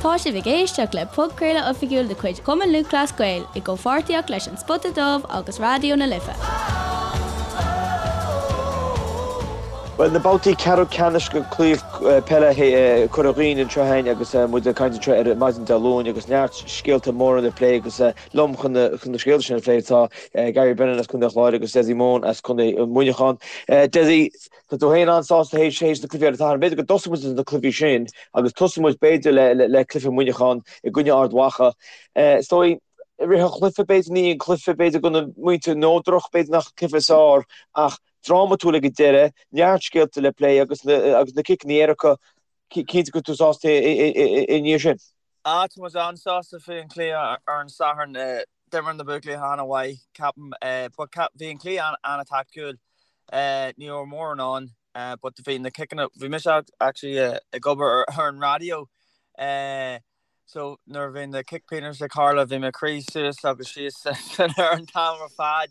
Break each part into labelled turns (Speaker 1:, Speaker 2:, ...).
Speaker 1: Tá sibh ag éisteacht le podchraoladh oifigiúil de chuid Chumann Lúthchleas Gael i gcomhpháirtíocht leis An Spota Dubh agus Raidió na Life.
Speaker 2: Bhuel, na babhtaí ceathrú ceannais de Chraobh Peile Chorca Dhuibhne anseo againn agus muid ag caint anseo ar maidin Dé Luain agus neart scéalta móra le plé agus liom chun na scéalta sin a phlé tá Gary Brennan as Contae an Chláir agus Dessie Mone as Contae Mhuineacháin. Dessie, Tá tú féin an-sásta théis na cluichí ar an Satharn. B'fhéidir go dtosóidh muid na cluichí sin agus tosóidh muid b'fhéidir le cluiche Mhuineacháin i gcoinne Ard Mhacha. Is dóigh, i rith an chluiche, b'fhéidir ní an cluiche, b'fhéidir go na muintir neodrach, b'fhéidir nach cluiche is fearr ach drámatúil ag an deireadh, neart scéalta le plé agus na ciceanna éirice, cinnte go bhfuil tú sásta i ndiaidh sin.
Speaker 3: Ah, tá muid an-sásta faoi an chluiche ar an Satharn. D'imir na buachaillí an-mhaith, ceapaim. But bhí an cluiche an-taictiúil. Ní raibh mórán ann, but bhí na ciceanna, bhí mise actually ag obair ar an raidió. So nuair a bhí na cic pionóis ag tarlú, bhí mé ag rith suas agus síos san ar an t-am ar fad.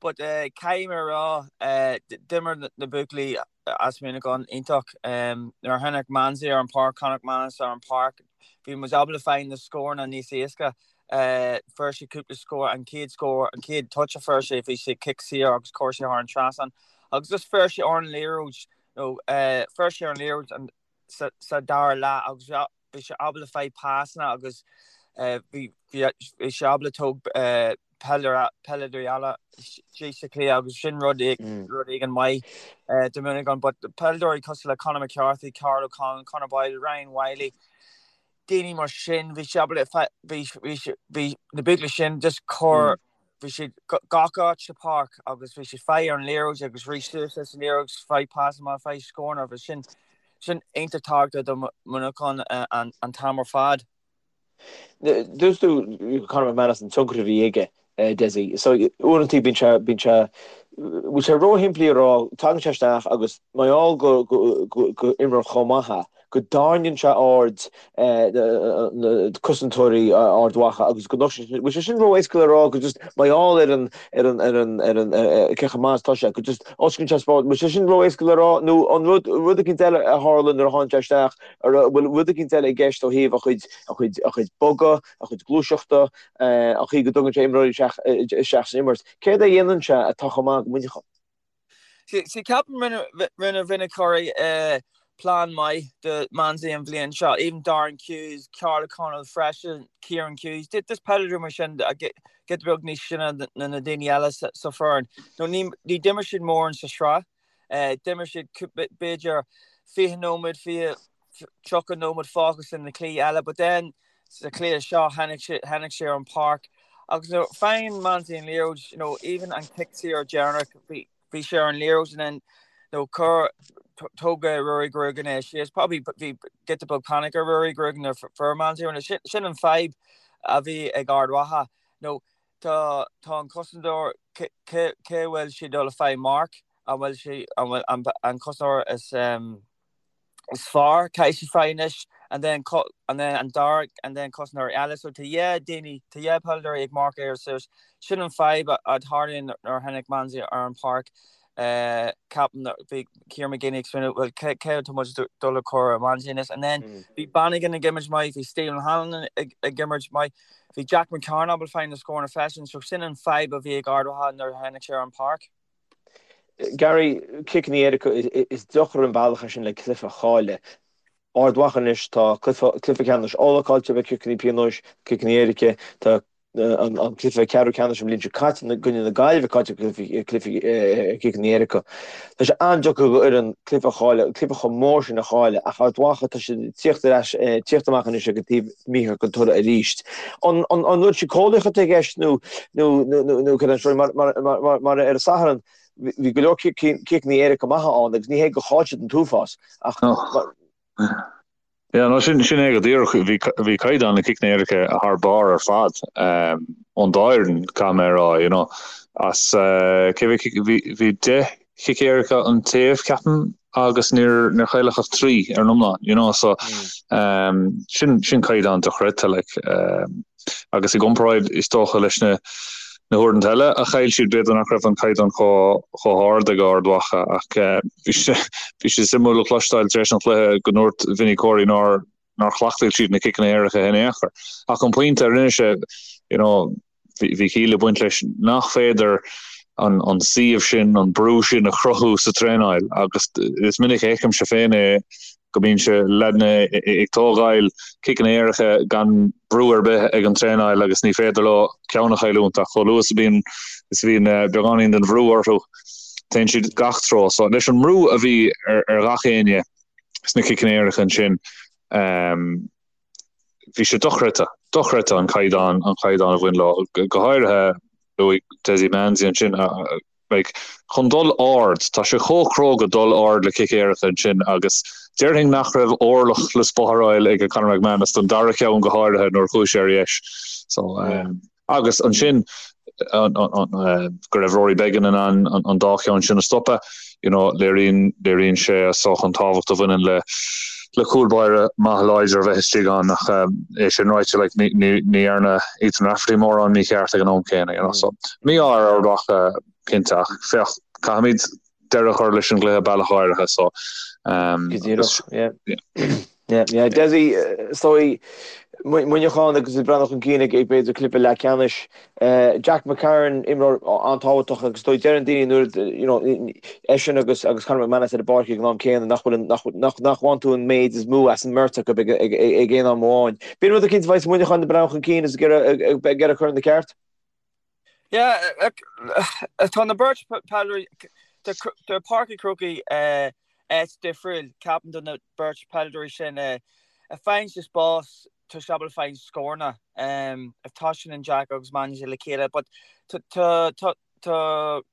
Speaker 3: But caithfidh mé a rá, d'imir na buachaillí as Muineachán iontach. Nuair a tháinig Mansie ar an páirc, Conor McManus ar an páirc, bhí muid ábalta fáil na scóranna níos éasca. Fuair sé cúpla scór, an chéad scór, an chéad touch a fuair sé, bhí sé cic saor agus chuir sé thar an trasnán. Agus just fuair sé ar an liathróid, nó fuair sé ar an liathróid sa dara leath agus bhí sé ábalta fáil pasanna agus bhí sé ábalta tóg peileadóirí eile síos sa chluiche agus sin rud rud éigin maith do Mhuineachán. But peileadóirí cosúil le Conor McCarthy, Karl O'Connell, Conor Boyle, Ryan Wylie, daoine mar sin, bhí sé ábalta bhí bhí na buachaillí sin just cur bhí siad gach áit sa páirc agus bhí siad fáil ar an liathróid agus rith suas leis an liathróid, fáil pasanna, fáil scóranna agus sin sin iontach tábhachtach do Mhuineachán an t-am ar fad.
Speaker 2: Dúirt tú Conor McManus an tionchar a bhí aige, Dessie. So uaireanta bíonn sé, bíonn sé, bhfuil sé róshimplí a rá, tagann sé isteach agus mar gheall go, go, go, go imreoir chomh maith é, go dtarraingíonn sé aird na cosantóirí Ard Mhacha agus go nochtann sé, bhfuil sé sin ró-éasca le rá go just mar gheall ar an, ar an, ar an, ar an, cé chomh maith is atá sé, go just osclaíonn sé spás, bhfuil sé sin ró-éasca le rá nó an rud, rud eicínt eile a tharla nuair a tháinig sé isteach, an bhfuil rud eicínt eile i gceist ó thaobh a chuid, a chuid, a chuid bogadh, a chuid gluaiseachta, an chaoi go dtugann sé imreoirí isteach, isteach san imirt. Céard a dhéanann sé atá chomh maith do Mhuineachán?
Speaker 3: See, ceapaim rinne rinne Vinny Corey plean maith do Mansie an bhliain seo, even Darren Hughes, Karl O'Connell freisin, Kieran Hughes, just peileadóirí mar sin giota beag níos sine ná na daoine eile sa foireann. No, ní ní d'imir siad mórán sa sraith, d'imir siad b'fhéidir 20 nóiméad, 20, 30 nóiméad fágtha sa na cluichí eile, but then sa chluiche seo tháinig sé tháinig sé ar an páirc agus you know, faigheann Mansie an liathróid, you know, even an cic saor deireanach bhí bhí sé ar an liathróid and then you know, chuir thóg Ruairí Grogan é síos, probably bhí giota beag panic ar Ruairí Grogan nuair fuair Mansie ar sin sin an fadhb a bhí ag Ard Mhacha. You know, tá tá an cosantóir cé cé bhfuil sé dul a fáil marc an bhfuil sé an bhfuil an an cosantóir is um, is fearr caithfidh sé fáil anois and then and then an dara and then cosantóir eile so tá dhá daoine tá dhá peileadóirí ag marcadh air suas sin an fadhb a tharlaíonn nuair a tháinig Mansie ar an páirc ceapaim bhí Kieran McGeeney ag smaoineamh well cé cé atá muid dul a chur ar Mansie anois and then bhí Bannigan ag imirt maith bhí Stephen Hanlon ag ag imirt maith bhí Jack McCarron ábalta fáil na scóranna freisin so sin an fadhb a bhí ag Ard Mhacha nuair a tháinig sé ar an páirc.
Speaker 2: Gary, ciceanna éirice, is deacair an bealach é sin le cluiche a chailleadh. Ard Mhacha anois, tá cluiche ceannais Uladh caillte le ciceanna pionóis, ciceanna éirice, tá an cluiche ceathrú ceannais an bhliain seo caite i gcoinne na Gaillimhe caillte ciceanna éirice. Tá sé an-deacair do fhoireann cluiche a chailleadh, cluiche chomh mór sin a chailleadh ach Ard Mhacha tá siad ag tíocht ar ais, tíocht amach anois ag an taobh mícheart den toradh arís. An rud síceolaíoch atá i gceist nó nó cad é an scéal mar mar ar an Satharn bhí go leor ciceanna éirice maithe ann agus ní hé gur chaill siad an t-uafás ach
Speaker 4: Yeah, no, sin sin é go díreach. Bhí bhí caighdeán na ciceanna éirice thar barr ar fad ón dá fhoireann, caithfidh mé a rá, you know. As cé bhí bhí bhí 10 chic éirice an taobh, ceapaim, agus níor níor chailleadh ach 3 ar an iomlán, you know, so sin sin caighdeán dochreidte, like. Agus i gcomparáid, is dócha, leis na na huaireanta eile a chaill siad, b'fhéidir nach raibh an caighdeán chomh chomh hard ag Ard Mhacha ach bhí sé bhí sé suimiúil a chloisteáil tar éis an chluiche go ndúirt Vinny Corey nár. nár chleachtaigh siad na ciceanna éirice in aon chor. Ach an pointe a rinne sé, you know, bhí ciall ag baint leis nach féidir an an suíomh sin, an brú sin a chruthú sa traenáil agus is minic a fheicimse féin é go mbíonn sé leaideanna ag tógáil ciceanna éirice gan brú ar bith ag an traenáil agus ní féidir leo ceann a chailliúint ach chomh luath is a bhíonn is a bhíonn beagáinín den bhrú orthu téann siad gach treo. So leis an mbrú a bhí ar ar gach éinne sna ciceanna éirice ansin bhí sé dochreidte, dochreidte an caighdeán, an caighdeán a bhain leo, go háirithe luaigh Dessie Manzie ansin, like, chun dul ard, tá sé chomh cróga dul ard le cic éirice ansin agus déarfainn nach raibh orlach le spáráil ag Conor McManus don dara ceann go háirithe nuair a chuaigh sé ar dheis. So, um, Agus ansin go raibh Rory Beggan in ann an dá cheann sin a stopadh, you know, léiríonn, léiríonn sé is dócha an tábhacht a bhaineann le le cúl báire maith láidir a bheith istigh ann ach é sin ráite, like, ní, ní, ní dhearna Ethan Rafferty mórán mícheart ag an am céanna, you know, so mí-ádh ar Ard Mhacha cinnte ach féach, caithfimid deireadh a chur leis an gcluiche bealach áirithe so
Speaker 2: um, Go díreach, yeah. Yeah, yeah. Dessie, is dóigh, Muineachán agus ag breathnú chun cinn ag b'fhéidir cluiche leathcheannais. Jack McCarron, imreoir an-tábhachtach agus is dóigh deireann daoine nuair you know, eisean agus agus Conor McManus ar an bpáirc ag an am céanna nach bhfuil nach nach nach bhfaigheann tú an méid is mó as an mbeirt acu ag ag ag aon am amháin. B'in rud eicínt a bheidh Muineachán ag breathnú chun cinn is ag iarraidh ag iarraidh cur ina ceart.
Speaker 3: Yeah, tá na beirt peileadóirí, tá Páirc an Chrócaigh áit difriúil, ceapaim do na beirt peileadóirí sin. A faigheann siad spás, tá siad ábalta fáil scóranna. If tá sin an Jack agus Manzie le chéile, but tá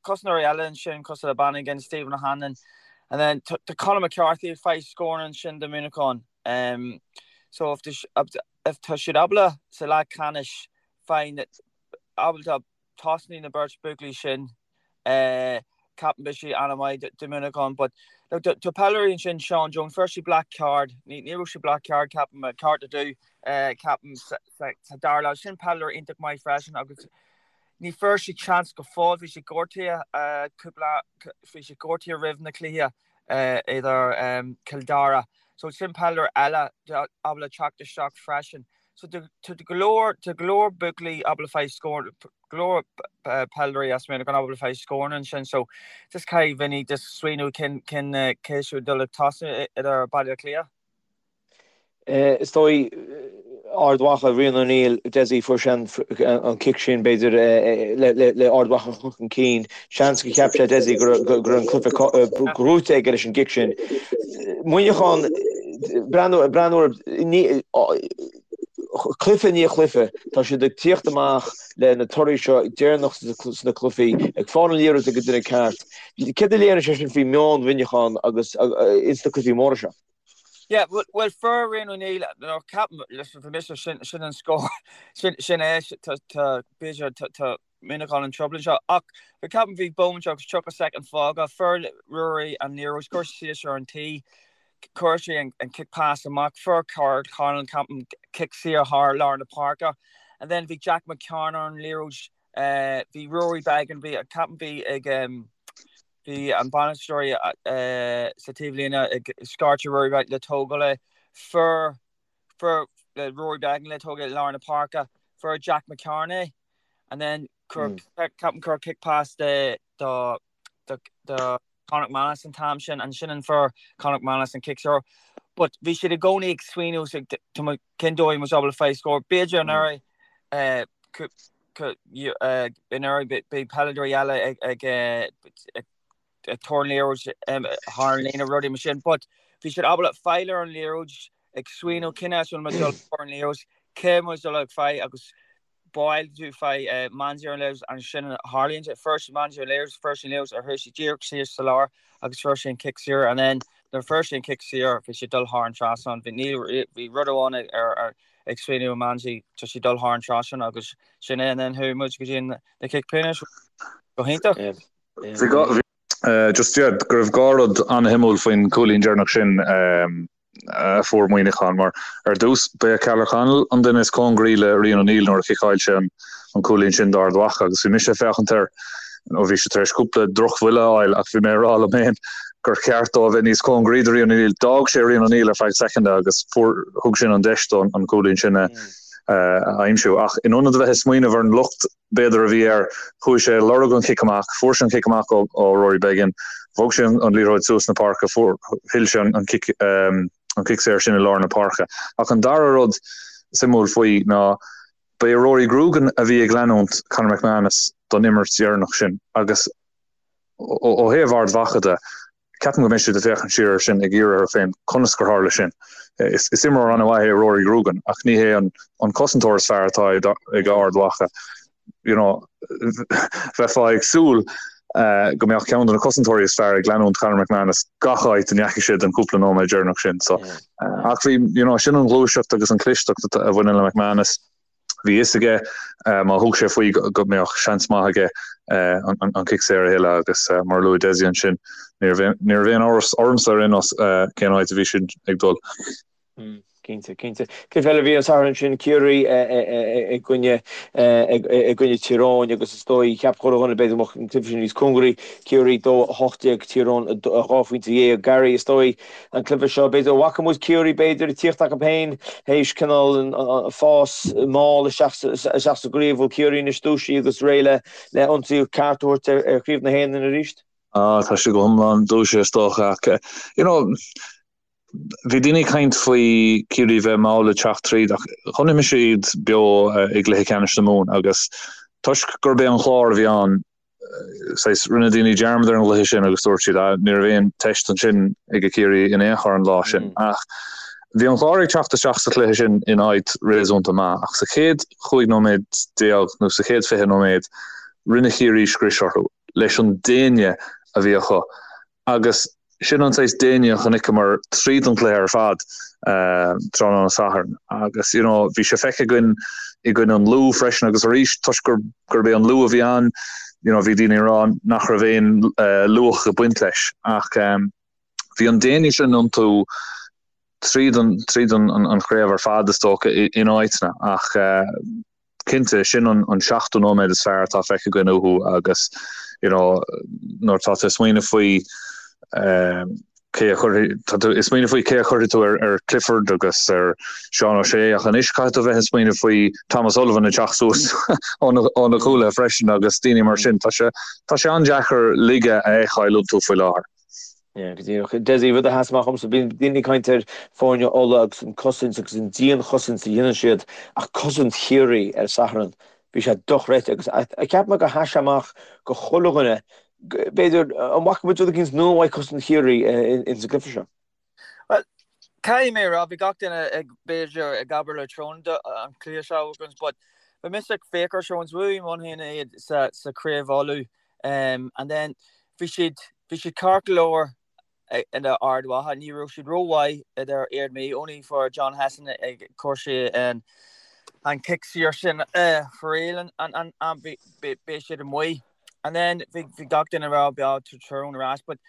Speaker 3: cosantóirí eile ansin cosúil le Bannigan, Stephen O'Hanlon, and then tá Conor McCarthy ag fáil scóranna ansin do Mhuineachán. So if tá siad ábalta sa leathcheannais fáil ábalta tosnaí na beirt buachaillí sin ceapaim beidh sé an-mhaith do Mhuineachán but look tá peileadóirí ansin Sean Jones fuair sé black card ní ní raibh sé black card ceapaim cárta dubh ceapaim sa dara leath sin peileadóir iontach maith freisin agus ní fuair sé chance go fóill bhí sé gortaithe cúpla bhí sé gortaithe roimh na cluiche idir Cill Dara so sin peileadóir eile ábalta teacht isteach freisin. So tá go leor, tá go leor buachaillí ábalta fáil scór, go leor peileadóirí as Muineachán ábalta fáil scóranna ansin. So just caithfidh Vinny just smaoineamh cén, cén, cé siúd dul ag tosnú idir Baile Átha Cliath.
Speaker 2: Is dóigh Ard Mhacha, Rian O'Neill, Dessie, fuair sé an cic sin b'fhéidir le Ard Mhacha a chur chun cinn. Seans gur cheap sé Dessie go raibh an cluiche gnóite aige leis an gcic sin. Muineachán, breathnú ar chluiche i ndiaidh chluiche, tá siad ag tíocht amach le na torthaí seo deireanach sna cluichí, ag fáil an liathróid ag an duine ceart. Céard a léiríonn sé sin faoi meon Mhuineacháin agus ins na cluichí móra seo?
Speaker 3: Yeah, bhuel fuair Rian O'Neill, nó ceapaim, listen, bhí mise, sin, sin an scór, sin, sin é, tá, tá, b'fhéidir, tá, tá Muineachán in trouble anseo, ach bhí, ceapaim, bhí bomaite agus 30 soicind fágtha, fuair Ruairí an liathróid, chuir sé suas ar an T, chuir sé an, an kick pass amach, fuair Karl Conlon, ceapaim, cic saor thar lár na páirce, and then bhí Jack McCarron ar an liathróid, bhí Rory Beggan, bhí, ceapaim, bhí ag, Bhí an bainisteoir sa taobhlíne ag scairteadh Rory Beggan le tógáil é. Fuair fuair Rory Beggan le tógáil i lár na páirce. Fuair Jack McCarron é and then chuir ceapaim chuir kick pass de do do do Conor McManus an t-am sin ansin an fuair Conor McManus an cic saor. But bhí siad i gcónaí ag smaoineamh cén dóigh muid ábalta fáil scór. B'fhéidir anuraidh anuraidh bhí peileadóirí eile ag tabhairt an liathróid thar an líne rudaí mar sin but bhí siad ábalta fáil ar an liathróid ag smaoineamh cén áit bhfuil muid dul ar an liathróid cé muid dul ag fáil agus báil tú fáil Manzie ar an liathróid ansin tharlaíonn sé fuair sé Manzie ar an liathróid fuair sé an liathróid ar chuir sé díreach síos sa lár agus fuair sé an cic saor and then nuair fuair sé an cic saor bhí sé dul thar an trasnán bhí níl bhí rud amháin ar ar ag smaoineamh Manzie tá sé dul thar an trasnán agus sin é and then chuaigh muid go dtí na cic pionóis go hiontach.
Speaker 4: Bhí just yeah go raibh dhá rud an-shuimiúil faoin chúilín deireanach sin a fuair Muineachán mar ar dtús ba é Ceallach Connell an duine is cóngaraí le Rian O'Neill nuair a chiceáil sé an cúilín sin d'Ard Mhacha agus bhí mise ag féachaint air ó bhí sé tar éis cúpla drochbhuille a fháil ach bhí mé ag rá liom féin. gur cheart dó a bheith níos cóngaraí do Rian O'Neill. D'fhág sé Rian O'Neill ar feadh soicind agus fuair, thug sin an deis dó an cúilín sin a aimsiú. Ach in ionad a bheith ag smaoineamh ar an locht b'fhéidir a bhí air, chuaigh sé ag lorg an chic amach, fuair sé an cic amach ó Rory Beggan, bhog sé an liathróid suas na páirce, fuair, thuill sé an cic, an cic saor sin i lár na páirce. Ach an dara rud suimiúil faoi ná ba é Rory Grugan a bhí ag leanúint Conor McManus don imirt dheireanach sin agus Ó thaobh Ard Mhacha de, ceapaim go mbeidh siad ag féachaint siar air sin ag iarraidh orthu féin conas gur tharla sin. Is imreoir an-mhaith é Rory Grugan ach ní hé an cosantóir is fearr atá ag Ard Mhacha. You know, bheifeá ag súil go mbeadh ceann de na cosantóirí is fearr ag leanúint Conor McManus gach áit a ndeachaigh sé don cúpla nóiméad deireanach sin. So, ach bhí, you know, sin an ghluaiseacht agus an chlisteacht a bhaineann le McManus. Bhí a fhios aige má thug sé faoi go mbeadh seans maith aige an cic saor a thuilleadh agus mar a luaigh Dessie ansin, ní raibh aon amhras ormsa ar aon nós cén áit a bhí sin ag dul.
Speaker 2: Cinnte, cinnte. Cluiche eile a bhí an Satharn sin, Ciarraí i gcoinne i gcoinne Tír Eoghain agus is dóigh, cheap chuile dhuine b'fhéidir go mbeadh an cluiche sin níos cóngaraí, Ciarraí 2, 18, Tír Eoghain 2 phointe dhéag. Gary, is dóigh an cluiche seo. B'fhéidir bhfaca muid Ciarraí b'fhéidir ag tíocht acu féin théis cineál an fás mall isteach isteach sa gcraobh. Bhfuil Ciarraí anois dúisithe agus réidh le le ionsaí ceart a thabhairt ar ar chraobh na hÉireann arís?
Speaker 4: Ah tá siad go hiomlán dúisithe is dócha ach you know bhí daoine ag caint faoi Ciarraí bheith mall ag teacht tríd ach chonaic mise iad beo i gcluiche ceannais na Mumhan agus toisc gurb é an Clár a bhí ann saghas, rinne daoine dearmad ar an gcluiche sin agus dúirt siad, ah, ní raibh aon teist ansin ag Ciarraí in aon chor an lá sin. Ach bhí an Clár ag teacht isteach sa chluiche sin in áit réasúnta maith, ach sa chéad chúig nóiméad déag nó sa chéad 20 nóiméad, rinne Ciarraí scrios orthu leis an déine a bhí acu. Agus sin an saghas déine a chonaiceamar tríd an chluiche ar fad tráthnóna Sathairn. Agus you know bhí sé feicthe againn i gcoinne an Lú freisin agus arís toisc gur gurb é an Lú a bhí ann you know bhí daoine ag rá nach raibh aon luach ag baint leis. Ach bhí an déine sin iontu tríd an tríd an an chraobh ar fad is dócha in áiteanna ach cinnte, sin an seachtó nóiméad is fearr atá feicthe againn uathu agus you know nuair atá tú ag smaoineamh faoi cé a chuirfidh, tá tú ag smaoineamh faoi cé a chuirfidh tú ar ar Clifford agus ar Seán O'Shea ach anois caithfidh tú bheith ag smaoineamh faoi Thomas Sullivan ag teacht suas ó na cúlaithe freisin agus daoine mar sin. Tá sé tá sé an-deacair laige a fheiceáil iontu faoi láthair.
Speaker 2: Yeah, go díreach. Dessie, rud a sheas amach dhomsa, bíonn daoine ag caint ar foirne Uladh agus an cosaint agus an dianchosaint a dhéanann siad, ach cosaint Chiarraí ar Satharn, bhí sé dochreidte agus cheap mé gur sheas sé amach go chuile dhuine, b'fhéidir, an bhfaca muid rud eicínt nua uaidh cosaint Chiarraí ins an gcluiche seo?
Speaker 3: Bhuel, caithfidh mé a rá, bhí gach duine ag, b'fhéidir, ag abair le Tyrone an cluiche seo agus, but bhí mise ag féach ar Tyrone, bhuaigh Muimhneach iad sa, sa Chraobh Uladh. Um, and then bhí siad, bhí siad ceart go leor idir Ard Mhacha, ní raibh siad rómhaith idir Ard Mhacha, only for John Hession ag cur sé an, an cic saor sin uh, for real and, and, and, and bhí, bhí, bhí siad amuigh. And then bhí, bhí gach duine ag rá beo Tyrone ar ais, but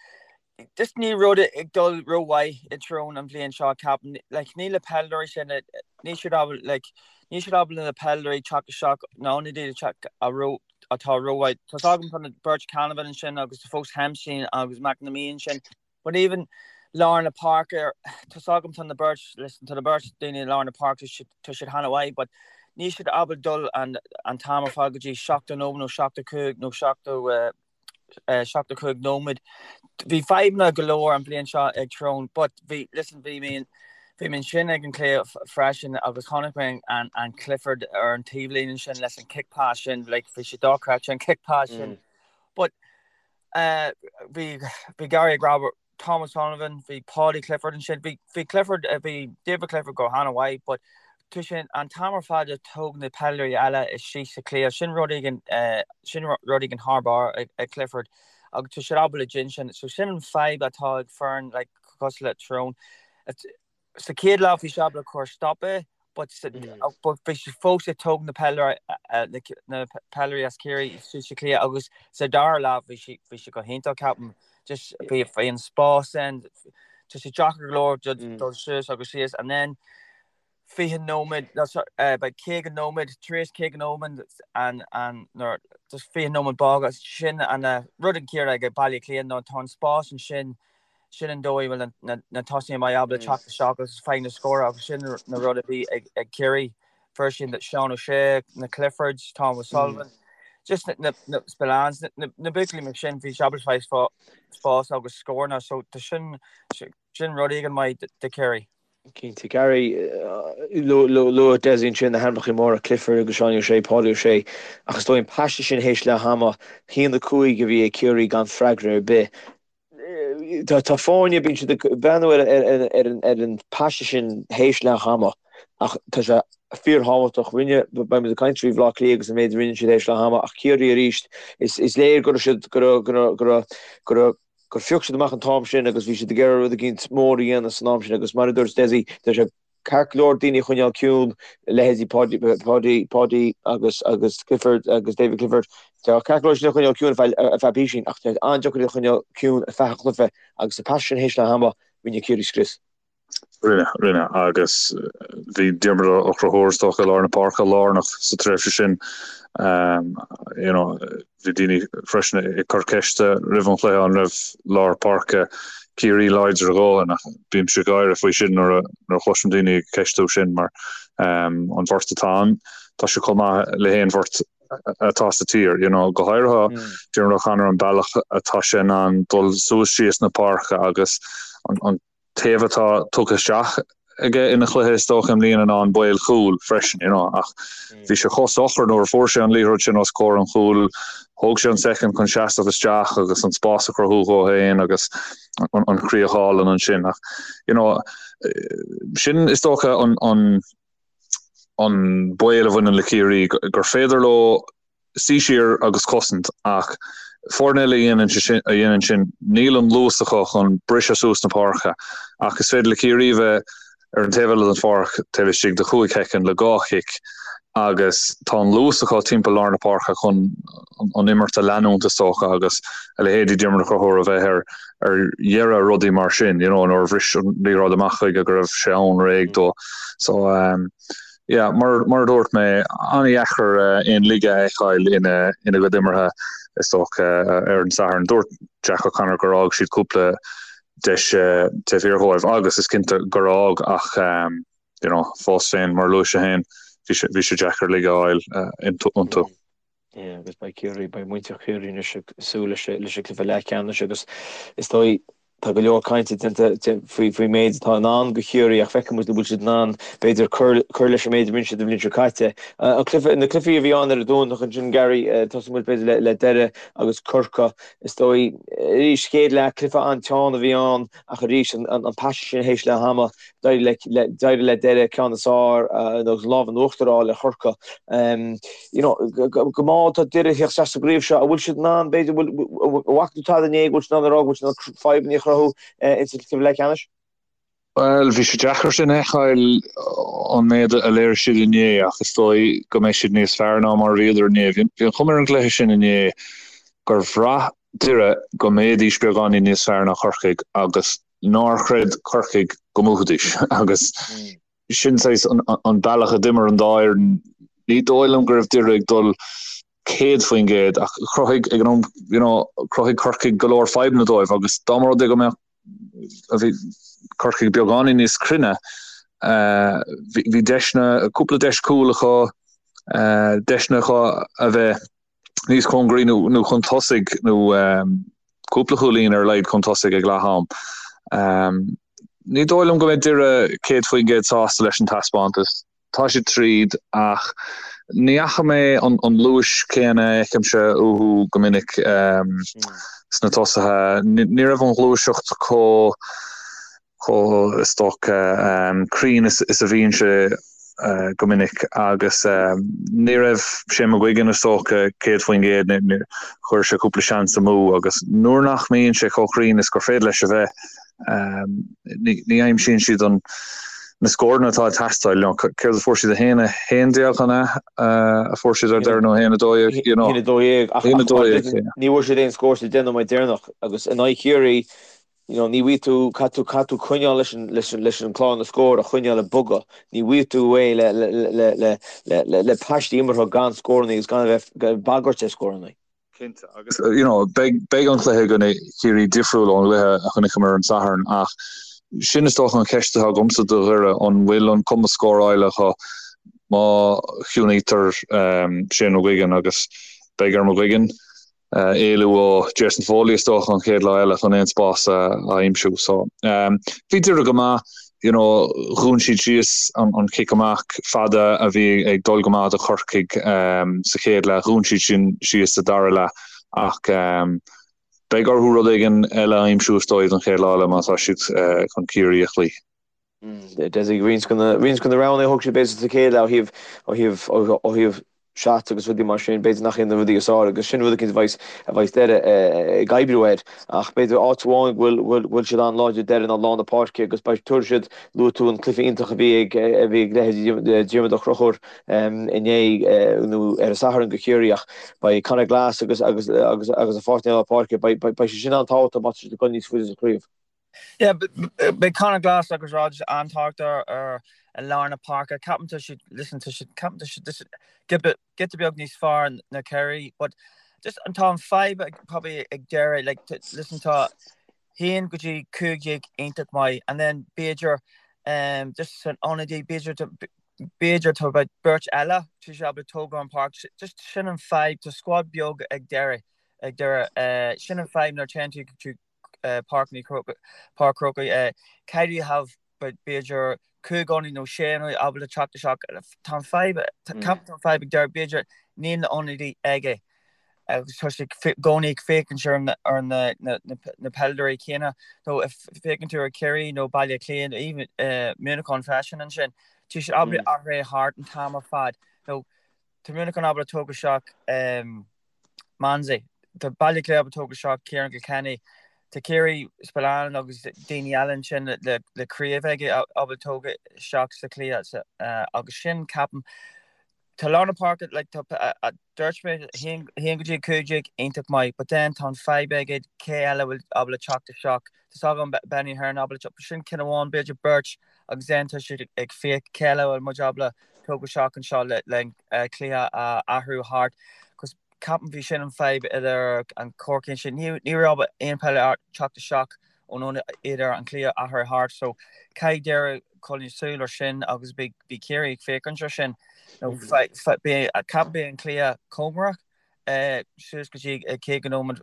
Speaker 3: Just níl rud ag dul rómhaith i Tyrone an bhliain seo ceapaim. Like níl na peileadóirí sin níl siad ábalta like níl siad ábalta na peileadóirí teacht isteach na ionadaithe teacht a ró atá rómhaith. Tá's agam tá na beirt Canavan ansin agus tá fós Hempsey agus McNamee ansin but even lár na páirce tá's agam tá na beirt listen tá na beirt daoine i lár na páirce tá siad han-mhaith but níl siad ábalta dul an an t-am ar fad go dtí 70 nóiméad nó 75 nó 70 75 nóiméad. Bhí fadhbanna go leor an bhliain seo ag Tyrone but bhí, listen, bhí mé, bhí mé ansin ag an cluiche freisin agus chonaic mé an, an Clifford ar an taobhlíne ansin leis an kick pass sin, like, bhí sé dochreidte an kick pass sin. But uh, bhí, bhí Gary ag rá Thomas Sullivan, bhí Paudie Clifford ansin, bhí, bhí Clifford, bhí David Clifford go han-mhaith but tá sé an t-am ar fad ag tóg na peileadóirí eile síos sa chluiche, sin rud éigin, sin rud éigin thar barr ag Clifford agus tá siad ábalta déanamh sin, so sin an fadhb atá ag foireann like cosúil le Tyrone. Sa chéad leath bhí siad ábalta cur stop é but but bhí siad fós ag tóg na peileadóirí na peileadóirí as Ciarraí síos sa chluiche agus sa dara leath bhí siad bhí siad go hiontach ceapaim just bhí bhí an spás ann tá sé deacair go leor dul suas agus síos and then 20 nóiméad beidh 50 nóiméad tar éis 50 nóiméad an an nuair just 20 nóiméad bága sin an rud an céanna ag Baile Átha Cliath nó tá an spás ansin. Sin an dóigh a bhfuil na tosaithe maith ábalta teacht isteach agus faigh na scóranna agus sin na rud a bhí ag Ciarraí. Fuair siad Seán O'Shea, na Cliffords, Tom O'Sullivan, just na Spillanes, na buachaillí mar sin, bhí siad ábalta fáil spás agus scóranna so tá sin sin rud éigin maith do Chiarraí.
Speaker 2: Cinnte, Gary, luaigh Dessie ansin na hainmneacha móra, Clifford agus Seánie O'Shea, Paudie O'Shea, ach is dóigh an paiste sin théis leath ama, 1-5 a bhí ag Ciarraí gan freagra ar bith. Tá foirne, bíonn siad ag breathnú ar an paiste sin théis leath ama ach tá sé fíorthábhachtach. Rinne, beidh muid ag caint faoi Bhaile Átha Cliath agus an méid a rinne siad théis leath ama ach Ciarraí arís, is léir go raibh siad, go raibh, go raibh, go raibh, go raibh, gur phioc siad amach an t-am sin agus bhí siad ag iarraidh rud eicínt mór a dhéanamh san am sin agus mar a dúirt Dessie, tá sé ceart go leor daoine a choinneáil ciúin, leithéidí Paudie, Paudie, Paudie agus, agus Clifford agus David Clifford, tá ceart go leor sin a choinneáil ciúin ar feadh, ar feadh písín ach tá an-deacair iad a choinneáil ciúin ar feadh an chluiche agus sa paiste sin théis leath ama, rinne Ciarraí scrios.
Speaker 4: Rinne, rinne, agus bhí Diarmuid Ó Conchúir is dócha i lár na páirce lárnach sa tréimhse sin. You know, bhí daoine freisin ag cur ceiste roimh an chluiche an raibh lár páirce Ciarraí láidir a dhóthain ach bímse ag gáire faoi sin nuair a nuair a chloisim daoine ag ceistiú sin mar an bheirt atá ann tá sé chomh maith le haon bheirt atá sa tír, you know, go háirithe Diarmuid O'Connor an bealach atá sé in ann dul suas síos na páirce agus an an taobh atá tugtha isteach aige ina chluiche is dócha i mbliana ná an baol cúil freisin you know ach bhí sé chomh socair nuair a fuair sé an liathróid sin os comhair an chúil thóg sé an soicind chun seasamh isteach agus an spás a chruthú dhó féin agus an, an chríoch álainn ansin ach you know sin is dócha an, an, an baol a bhaineann le Ciarraí gur féidir leo suí siar agus cosaint ach foirne eile a dhéanann sin, níl an luas acu chun briseadh suas na páirce ach is féidir le Ciarraí a bheith ar an taobh eile den pháirc taobh istigh de chúig shoicind le dhá chic agus tá an luas acu timpeall lár na páirce chun an imirt a leanúint is dócha agus a leithéidí Diarmuid Ó Conchúir a bheith ar ar dheireadh rudaí mar sin, you know, nuair a bhris an liathróid amach chuige go raibh sé ann réidh dó. So, um, Yeah, mar mar a dúirt mé, an-dheacair aon laige a fheiceáil ina ina gcuid imeartha is dócha ar an Satharn. Dúirt Jack O'Connor gur fhág siad cúpla deis taobh thiar dhóibh agus is cinnte gur fhág ach you know, fós féin, mar a luaigh sé féin, bhí sé bhí sé deacair laige a fháil iontu.
Speaker 2: Yeah, agus beidh Ciarraí, beidh muintir Chiarraí anois ag súil leis leis an gcluiche leathcheannais agus is dóigh tá go leor cainte déanta faoi faoin méid atá i ndán do Chiarraí ach feicfidh muid an bhfuil siad in ann b'fhéidir cur cur leis an méid a rinne siad an bhliain seo caite. An cluiche, na cluichí a bhí ann ar an Domhnach ansin Gary, tosóidh muid b'fhéidir le le Doire agus Corcaigh. Is dóigh arís chéad leath cluiche an-teann a bhí ann ach arís an an paiste sin théis leath ama D'éirigh le d'éirigh le Doire ceann is fearr nó an lámh in uachtar a fháil ar Chorcaigh. You know, go mall tá Doire ag teacht isteach sa gcraobh seo, an bhfuil siad in ann, b'fhéidir, bhfuil an bhfaca tú tada inné go bhfuil siad in ann a rá go bhfuil siad in ann fadhbanna a chruthú insa chluiche leathcheannais?
Speaker 4: Bhuel, bhí sé deacair sin a fheiceáil an méid a léirigh siad inné ach is dóigh go mbeidh siad níos fearr ná mar a bhíodar inné. Bhí an chuma ar an gcluiche sin inné gur bhraith Doire go mbeidís beagáinín níos fearr ná Corcaigh agus nár chreid Corcaigh go mbuafaidís agus sin saghas an bealach a d'imir an dá fhoireann. Ní dóigh liom go raibh Doire ag dul 100% ach chruthaigh ag an am you know chruthaigh Corcaigh go leor fadhbanna dóibh agus dá mba rud é go mbeadh bhí Corcaigh beagáinín níos cruinne bhí deiseanna cúpla deis cúl acu deiseanna acu a bheith níos cóngaraí nó chun tosaigh nó cúpla cúilín ar a laghad chun tosaigh ag leath am. Ní dóigh liom go mbeidh Doire 100% sásta leis an taispeántas. Tá siad tríd ach ní fhaca mé an luas céanna a fheicimse uathu go minic sna tosaithe. Ní raibh an ghluaiseacht chomh chomh, is dócha, cruinn is a bhíonn sé go minic agus ní raibh Shane McGuigan, is dócha, 100%, chuir sé cúpla seans amú agus nuair nach mbíonn sé chomh cruinn is gur féidir leis a bheith, ní aimsíonn siad an na scóranna atá ag teastáil. Céard a fuair siad, 1, 11 an ea a fuair siad ar deireadh nó 1, 12, you know.
Speaker 2: 1, 12, ach ní bhfuair siad aon scór sa deich nóiméad deireanach agus in aghaidh Chiarraí You know, ní bhfaighidh tú, caithfidh tú, caithfidh tú coinneáil leis an, leis an, leis an clár na scór a choinneáil ag bogadh. Ní bhfaighidh tú é le, le, le, le, le, le, le paistí imeartha gan scórannaí agus gan a bheith, bagairt ar scórannaí.
Speaker 4: Cinnte, agus you know, beidh, beidh an cluiche i gcoinne Chiarraí difriúil ón gcluiche a chonaiceamar ar an Satharn ach sin is dócha an cheist atá agamsa do Dhoire, an bhfuil an cumas scórála acu má chiúnaítear um, Shane McGuigan agus beidh ar McGuigan uh, éalú ó Jason Foley is dócha an chéad lá eile chun aon spás a, a aimsiú. So, um, bhí Doire go maith. you know, dhún siad síos an cic amach fada a bhí ag dul go maith do Chorcaigh sa chéad leath, dhún siad sin síos sa dara leath ach beidh orthu rud éigin eile a aimsiú is dóigh don chéad lá eile má tá siad chun Ciarraí a chloí.
Speaker 2: Dessie, roinnt de na roghanna a thug siad b'fhéidir sa chéad leath ó thaobh ó thaobh shots agus rudaí mar sin, b'fhéidir nach iad na rudaí is fearr agus sin rud eicínt a bheas, a bheas Doire ag oibriú air. Ach b'fhéidir áit amháin go bhfuil, bhfuil, bhfuil siad an-láidir Doire ná lár na páirce agus beidh, tabharfaidh siad, luaigh tú an cluiche iontach a bhí ag, a bhí ag leithéidí Diarmuid Ó Conchúir inné nó ar an Satharn do Chiarraí ach beidh Conor Glass agus, agus, agus, agus a pháirtnéir lár páirce, beidh, beidh, beidh sé sin an-tábhachtach má tá siad ag dul níos faide sa chraobh.
Speaker 3: Yeah, beidh Conor Glass agus Rodgers an-tábhachtach ar i lár na páirce. Ceapaim tá siad, listen, tá siad, ceapaim tá siad just giota beag níos fearr ná Ciarraí, but just an tá an fadhb ag probably ag Doire, like, listen, tá 1 go dtí 15 iontach maith, and then b'fhéidir um, just san ionadaí, b'fhéidir b'fhéidir tá about beirt eile tá siad ábalta tógáil an páirc, just sin an fadhb, tá squad beag ag Doire, ag Doire, uh, sin an fadhb nuair téann tú tú Páirc an Chrócaigh, caithfidh you have b'fhéidir 5 ionadaí nó 6 ionadaí ábalta teacht isteach. Tá an fadhb, ceapaim tá an fadhb ag Doire, b'fhéidir níl na ionadaí aige agus tá sé i gcónaí ag féachaint ar na na peileadóirí céanna. Nó féachann tú ar Chiarraí nó Baile Átha Cliath nó even Muineachán freisin ansin, tá siad ábalta athrú thart an t-am ar fad. Nó tá Muineachán ábalta tógáil isteach Manzie. Tá Baile Átha Cliath ábalta tógáil isteach Ciarán Kilkenny. Tá Ciarraí, Spillane agus daoine eile ansin le craobh aige ábalta tógáil isteach sa chluiche agus sin ceapaim tá lár na páirce like tá dúirt mé 1 go dtí 15 iontach maith but then tá an fadhb aige cé eile bhfuil ábalta teacht isteach. Tá a fhios agam Benny Ahern ábalta teacht sin ceann amháin b'fhéidir beirt agus then tá siad ag féach cé eile bhfuil muid ábalta tógáil isteach anseo le le cluiche a athrú thart cos ceapaim bhí sin an fadhb idir an Corcaigh sin ní ní raibh aon peileadóir teacht isteach ón ionad idir an cluiche a athrú thart so caithfidh Doire coinneáil súil ar sin agus beidh bhí Ciarraí ag féachaint ar sin nó beidh ceapaim beidh an cluiche cóngarach suas go dtí 50 nóiméad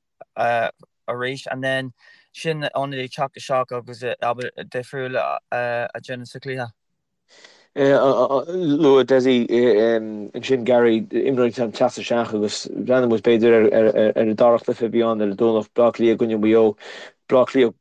Speaker 3: arís and then sin ionadaí teacht isteach agus difriúil a dhéanamh sa chluiche.
Speaker 2: Luaigh Dessie ansin Gary, imreoirí ag teacht isteach agus breathnaíonn muid b'fhéidir ar an dara cluiche a bhí ann ar an Domhnach, Bleá Cliath i gcoinne Mhaigh Eo. Bleá Cliath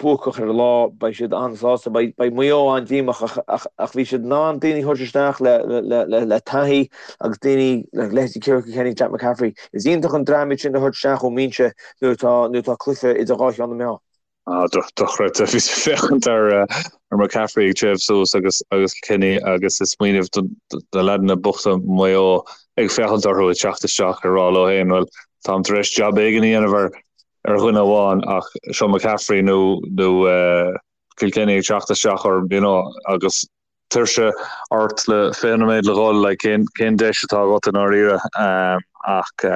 Speaker 2: buacach ar an lá, beidh siad an-sásta, beidh Maigh Eo an-díomách ach bhí siad in ann daoine a thabhairt isteach le taithí agus daoine le leithéidí Ciarán Kilkenny, Jack McCaffrey. Is iontach an dream iad sin a thabhairt isteach ón mbinse nuair atá cluiche idir dhá cheann na meá.
Speaker 4: Ah, dochreidte. Bhíos ag féachaint ar McCaffrey ag téamh suas agus agus Kilkenny agus ag smaoineamh do na leaideanna bochta Maigh Eo ag féachaint orthu ag teacht isteach ag rá leo féin, bhuel, táim tar éis jab éigin a dhéanamh ar ar dhuine amháin ach seo McCaffrey nó nó Kilkenny ag teacht isteach orm, you know, agus tuirse ort le 20 nóiméad le dhul, like, cén cén deis atá agat i ndáiríre? Ach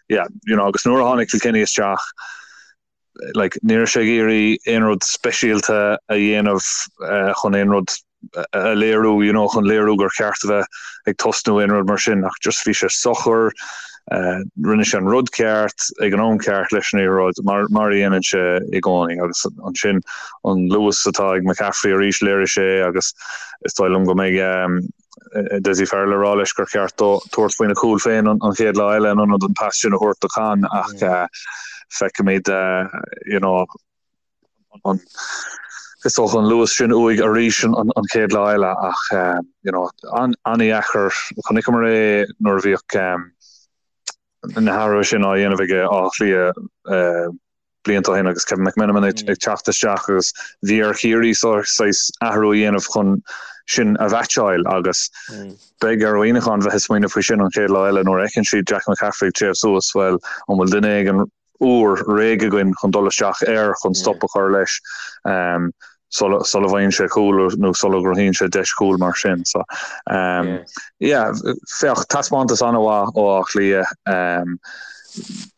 Speaker 4: yeah, you know, agus nuair a tháinig Kilkenny isteach, like, ní raibh sé ag iarraidh aon rud speisialta a dhéanamh chun aon rud a léiriú, you know, chun léiriú gur cheart a bheith ag tosnú aon rud mar sin, ach just bhí sé socair, rinne sé an rud ceart ag an am ceart leis an liathróid, mar, mar a dhéanann sé i gcónaí, agus ansin an luas atá ag McCaffrey arís léirigh sé agus is dóigh liom go mbeidh, Dessie Farrell ag rá leis gur cheart dó tabhairt faoina chúl féin an chéad lá eile in ionad an pas sin a thabhairt do Con ach feicfimid you know an is dócha an luas sin uaidh arís an chéad lá eile ach you know an-dheacair chonaiceamar é nuair a bhíodh na hathruithe sin á dhéanamh ag Áth Cliath blianta ó shin agus Kevin McMenamin ag teacht isteach agus bhí ar Chiarraí saghas athrú a dhéanamh chun sin a mheaitseáil agus beidh ar Mhuineachán bheith ag smaoineamh faoi sin an chéad lá eile nuair a fheiceann siad Jack McCaffrey ag téamh suas, bhuel, an bhfuil duine éigin úr réidh againn chun dul isteach air chun stop a chur leis sula bhfaigheann sé cúl nó sula gcruthaíonn sé deis chúil mar sin. So, yeah, féach, taispeántas an-mhaith ó Áth Cliath.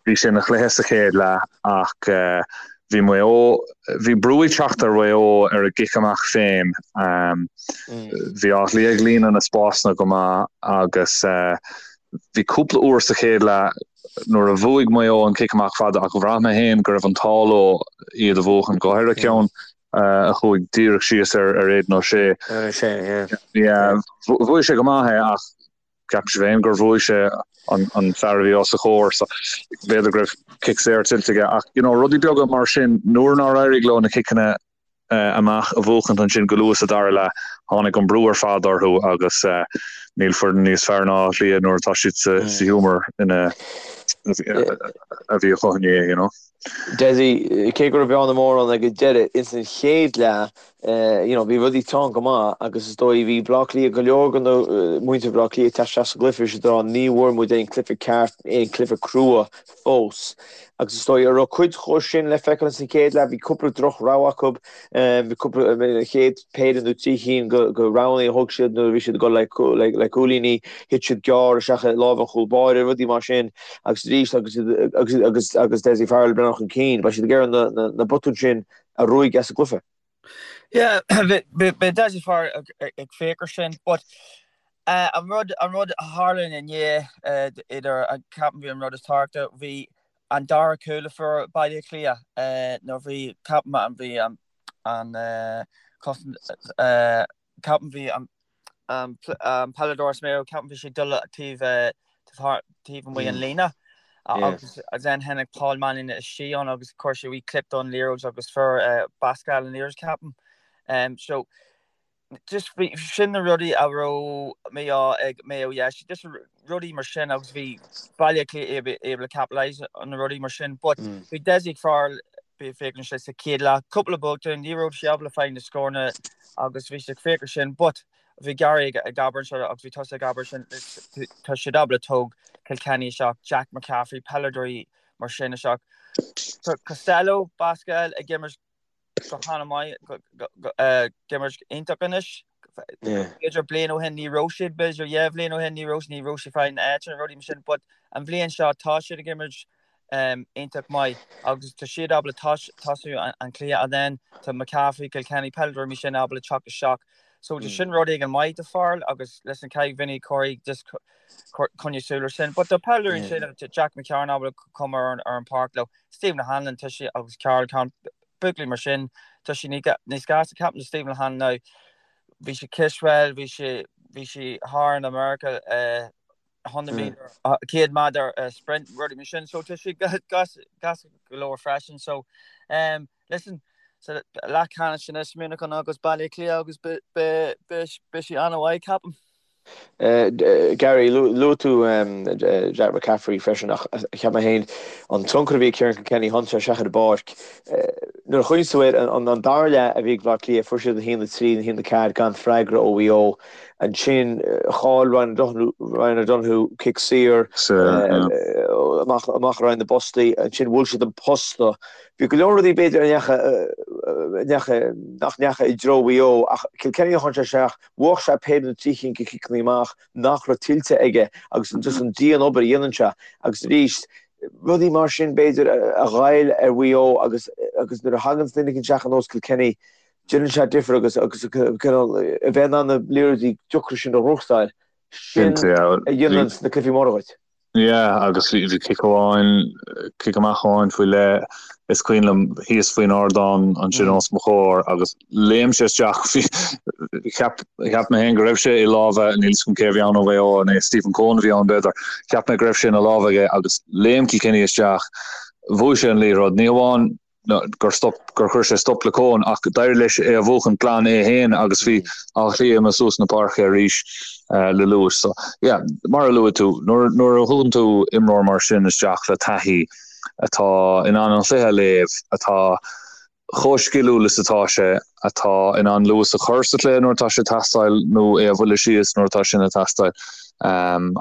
Speaker 4: Bhí sé ina chluiche sa chéad leath ach bhí Maigh Eo, bhí brú ag teacht ar Mhaigh Eo ar a gcic amach féin. Bhí Áth Cliath ag líonadh na spásanna go maith agus bhí cúpla uair sa chéad leath nuair a bhuaigh Maigh Eo an cic amach fada ach bhraith mé féin go raibh an t-ádh leo iad a bhuachan, go háirithe ceann a chuaigh díreach síos ar Aidan O'Shea.
Speaker 2: Yeah.
Speaker 4: Bhuaigh sé go maith é ach Ceapaimse féin gur bhuaigh sé an fear a bhí os a chomhair so b'fhéidir go raibh cic saor tuillte aige ach you know rudaí beaga mar sin nuair nár éirigh leo na ciceanna amach a bhuachaint ansin go luath sa dara leath tháinig an brú ar fad orthu agus níl foireann níos fearr ná Áth Cliath nuair atá siad sa ghiúmar ina a bhí acu inné you know.
Speaker 2: Dessie, cé go raibh bearna mór ann ag an deireadh, ins an chéad leath, you know, bhí rudaí teann go maith agus is dóigh bhí Bleá Cliath, go leor de na muintir Bhleá Cliath ag teacht isteach sa gcluiche, bhí siad ag rá ní bhfuair muid aon cluiche ceart, aon cluiche crua fós. Agus is dóigh, an raibh cuid dhó sin le feiceáil ins an chéad leath, bhí cúpla droch rogha acu, bhí cúpla, an chéad péire nó trí chinn de roghanna a thug siad nuair a bhí siad ag dul le cúilíní, thit siad gearr isteach i lámh an chúl báire, rudaí mar sin. Agus arís agus agus agus agus Dessie Farrell ag breathnú chun cinn, beidh siad ag iarraidh na na na botúin sin a ruaigeadh as an gcluiche.
Speaker 3: Yeah, beidh Dessie Farrell ag féach ar sin, but an rud an rud a tharla inné idir ceapaim bhí an rud is tábhachtaí bhí an dara cúl a fuair Baile Átha Cliath nuair bhí ceapaim an bhí an an cosaint ceapaim bhí an an peileadóir as Maigh Eo, ceapaim bhí sé ag dul taobh taobh amuigh an líne agus then tháinig Paul Mannion istigh ann agus chuir sé wee clip don liathróid agus fuair Basquel an liathróid ceapaim. So just bhí sin na rudaí a raibh mí-ádh ag Maigh Eo yeah, just rudaí mar sin agus bhí Baile Átha Cliath able to capitalise on na rudaí mar sin but bhí Dessie Farrell bhí féachann sé sa chéad leath cúpla botún ní raibh sé ábalta fáil na scóranna agus bhí sé ag féach ar sin but bhí Gary ag ag abair anseo agus bhí tusa ag abair sin tá siad ábalta tóg Kilkenny isteach Jack McCaffrey peileadóirí mar sin isteach Tá Costello Basquel ag imirt go han-mhaith ag imirt iontach anois. B'fhéidir bliain ó shin ní raibh siad, b'fhéidir dhá bhliain ó shin ní raibh ní raibh siad fáil an áit an rudaí mar sin, but an bhliain seo tá siad ag imirt iontach maith agus tá siad ábalta tosú an cluiche and then tá McCaffrey, Kilkenny, peileadóirí mar sin ábalta teacht isteach. So tá sin rud éigin maith do Farrell agus listen caithfidh Vinny Corey just coinneáil súil ar sin. But tá peileadóirí ansin Jack McCarron ábalta come ar an páirc leo. Stephen O'Hanlon tá sé agus Karl Con buachaillí mar sin tá sé níos gasta ceapaim Stephen O'Hanlon now bhí sé cispheil bhí sé bhí sé thar in America 100 meter 100 méadar sprint rudaí mar sin so tá sé gasta go leor freisin so um, listen so leathcheannais anois Muineachán agus Baile Átha Cliath agus beidh sé an-mhaith ceapaim.
Speaker 2: Gary, luaigh tú Jack McCaffrey freisin ach cheap mé féin an tionchar a bhí ag Ciarán Kilkenny tháinig sé isteach ar an bpáirc. Nuair a chuimhníos tú air, an dara leath a bhí ag Baile Átha Cliath, fuair siad 1-3, 1-4 gan freagra ó Mhaigh Eo. Ansin chaill Ryan O'Donoghue cic saor amach ar aghaidh na bpostaí. Ansin bhuail siad an posta. Bhí go leor rudaí b'fhéidir a ndeachaigh, nach ndeachaigh i dtreo Mhaigh Eo ach Kilkenny a tháinig sé isteach, Bhuaigh sé péire nó trí chinn de chiceanna amach nach raibh tuillte aige agus just an dian-obair a dhéanann sé agus arís rudaí mar sin b'fhéidir a ghoill ar Mhaigh Eo agus agus nuair a thagann duine éicint isteach ar nós Kilkenny déanann sé difear agus agus cineál a bheith in ann na liathróidí deacra sin a ghnóthachtáil sin a dhéanann na cluichí móra dhuit.
Speaker 4: Yeah, agus bhí cic amháin, cic amach amháin faoi leith, is cuimhin liom, thíos faoin ardán ansin os mo chomhair agus léim sé isteach, bhí, cheap, cheap mé féin go raibh sé i lámha, níl 'fhios agam cé a bhí ann ó Mhaigh Eo, an é Stephen Coen a bhí ann b'fhéidir, cheap mé go raibh sé ina lámha aige agus léim Kilkenny isteach, bhuaigh sé an liathróid, ní hamháin gur stop, gur chuir sé stop le Coen ach d'éirigh leis é a bhuachan glan é féin agus bhí Áth Cliath imithe suas na páirce arís le luas. So, yeah, mar a luaigh tú, nuair, nuair a thugann tú imreoir mar sin isteach le taithí atá in ann an chluiche a léamh, atá chomh sciliúil is atá sé, atá in ann luas a chur sa chluiche nuair atá sé ag teastáil nó é a bhualadh síos nuair atá sin ag teastáil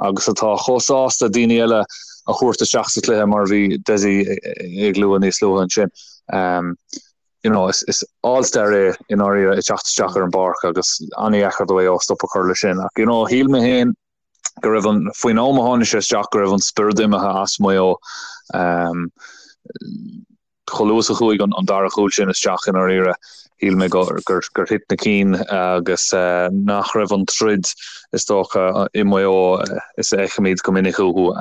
Speaker 4: agus atá chomh sásta daoine eile a thabhairt isteach sa chluiche mar a bhí Dessie ag lua níos luaithe ansin. You know, is, is all-star é i ndáiríre ag teacht isteach ar an bpáirc agus an-dheacair do Mhaigh Eo stop a chur leis sin. Ach, you know, shíl mé féin. go raibh an, faoin am a tháinig sé isteach, go raibh an spiorad imithe as Maigh Eo. Chomh luath is a chuaigh an dara chúl sin isteach i ndáiríre, shíl mé gur thit na cinn agus nach raibh an troid is dócha i Maigh Eo is a fheicimid go minic uathu.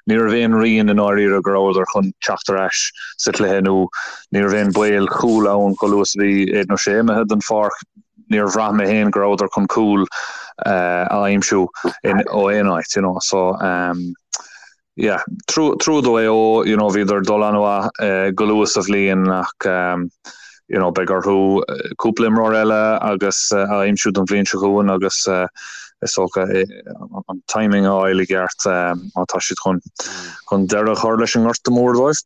Speaker 4: Ní raibh aon rian i ndáiríre go rabhadar chun teacht ar ais sa chluiche nó ní raibh aon baol cúl ann chomh luath is a bhí Aidan O'Shea imithe den pháirc. Níor bhraith mé féin go rabhadar chun cúl a aimsiú ó aon áit, you know. So, yeah, trua do Mhaigh Eo, you know, bhíodar ag dul an-mhaith go luath sa bhliain ach, you know, beidh orthu cúpla imreoir eile agus a aimsiú don bhliain seo chugainn agus is dócha an timing a fháil i gceart má tá siad chun chun deireadh a chur leis an ngorta mór dóibh.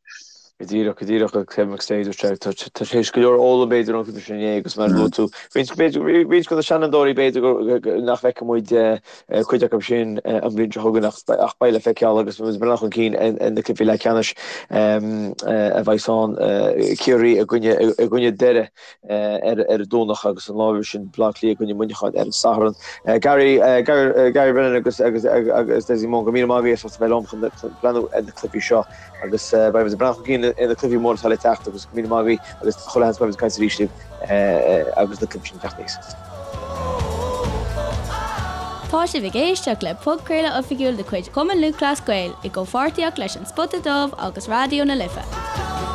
Speaker 2: Go díreach, go díreach, a Kevin McStay, dúirt sé, tá sé théis go leor a fhoghlaim b'fhéidir ón gcluiche sin inné agus mar a luaigh tú, roinnt b'fhéidir, roinnt de na seanfhondúirí b'fhéidir nach bhfeicfidh muid cuid acu sin an bhliain seo chugainn ach beidh le feiceáil agus muid ag breathnú chun cinn ar na cluichí leathcheannais a bheidh ann, Ciarraí i gcoinne, i gcoinne Doire ar an Domhnach agus an lá roimhe sin Baile Átha Cliath i gcoinne Muineacháin ar an Satharn. Gary, Gary Brennan agus agus agus Dessie Moran, go raibh míle maith agaibh as ucht a bheith liom chun breathnú ar na cluichí seo. Agus beidh muid ag breathnú chun cinn ar na cluichí móra atá le teacht agus go raibh míle maith agaibh agus chuile sheans beidh muid ag caint arís libh agus na cluichí sin ag teacht aníos.
Speaker 1: Tá sibh ag éisteacht le podchraoladh oifigiúil de chuid Chumann Lúthchleas Gael i gcomhpháirtíocht leis An Spota Dubh agus Raidió na Life.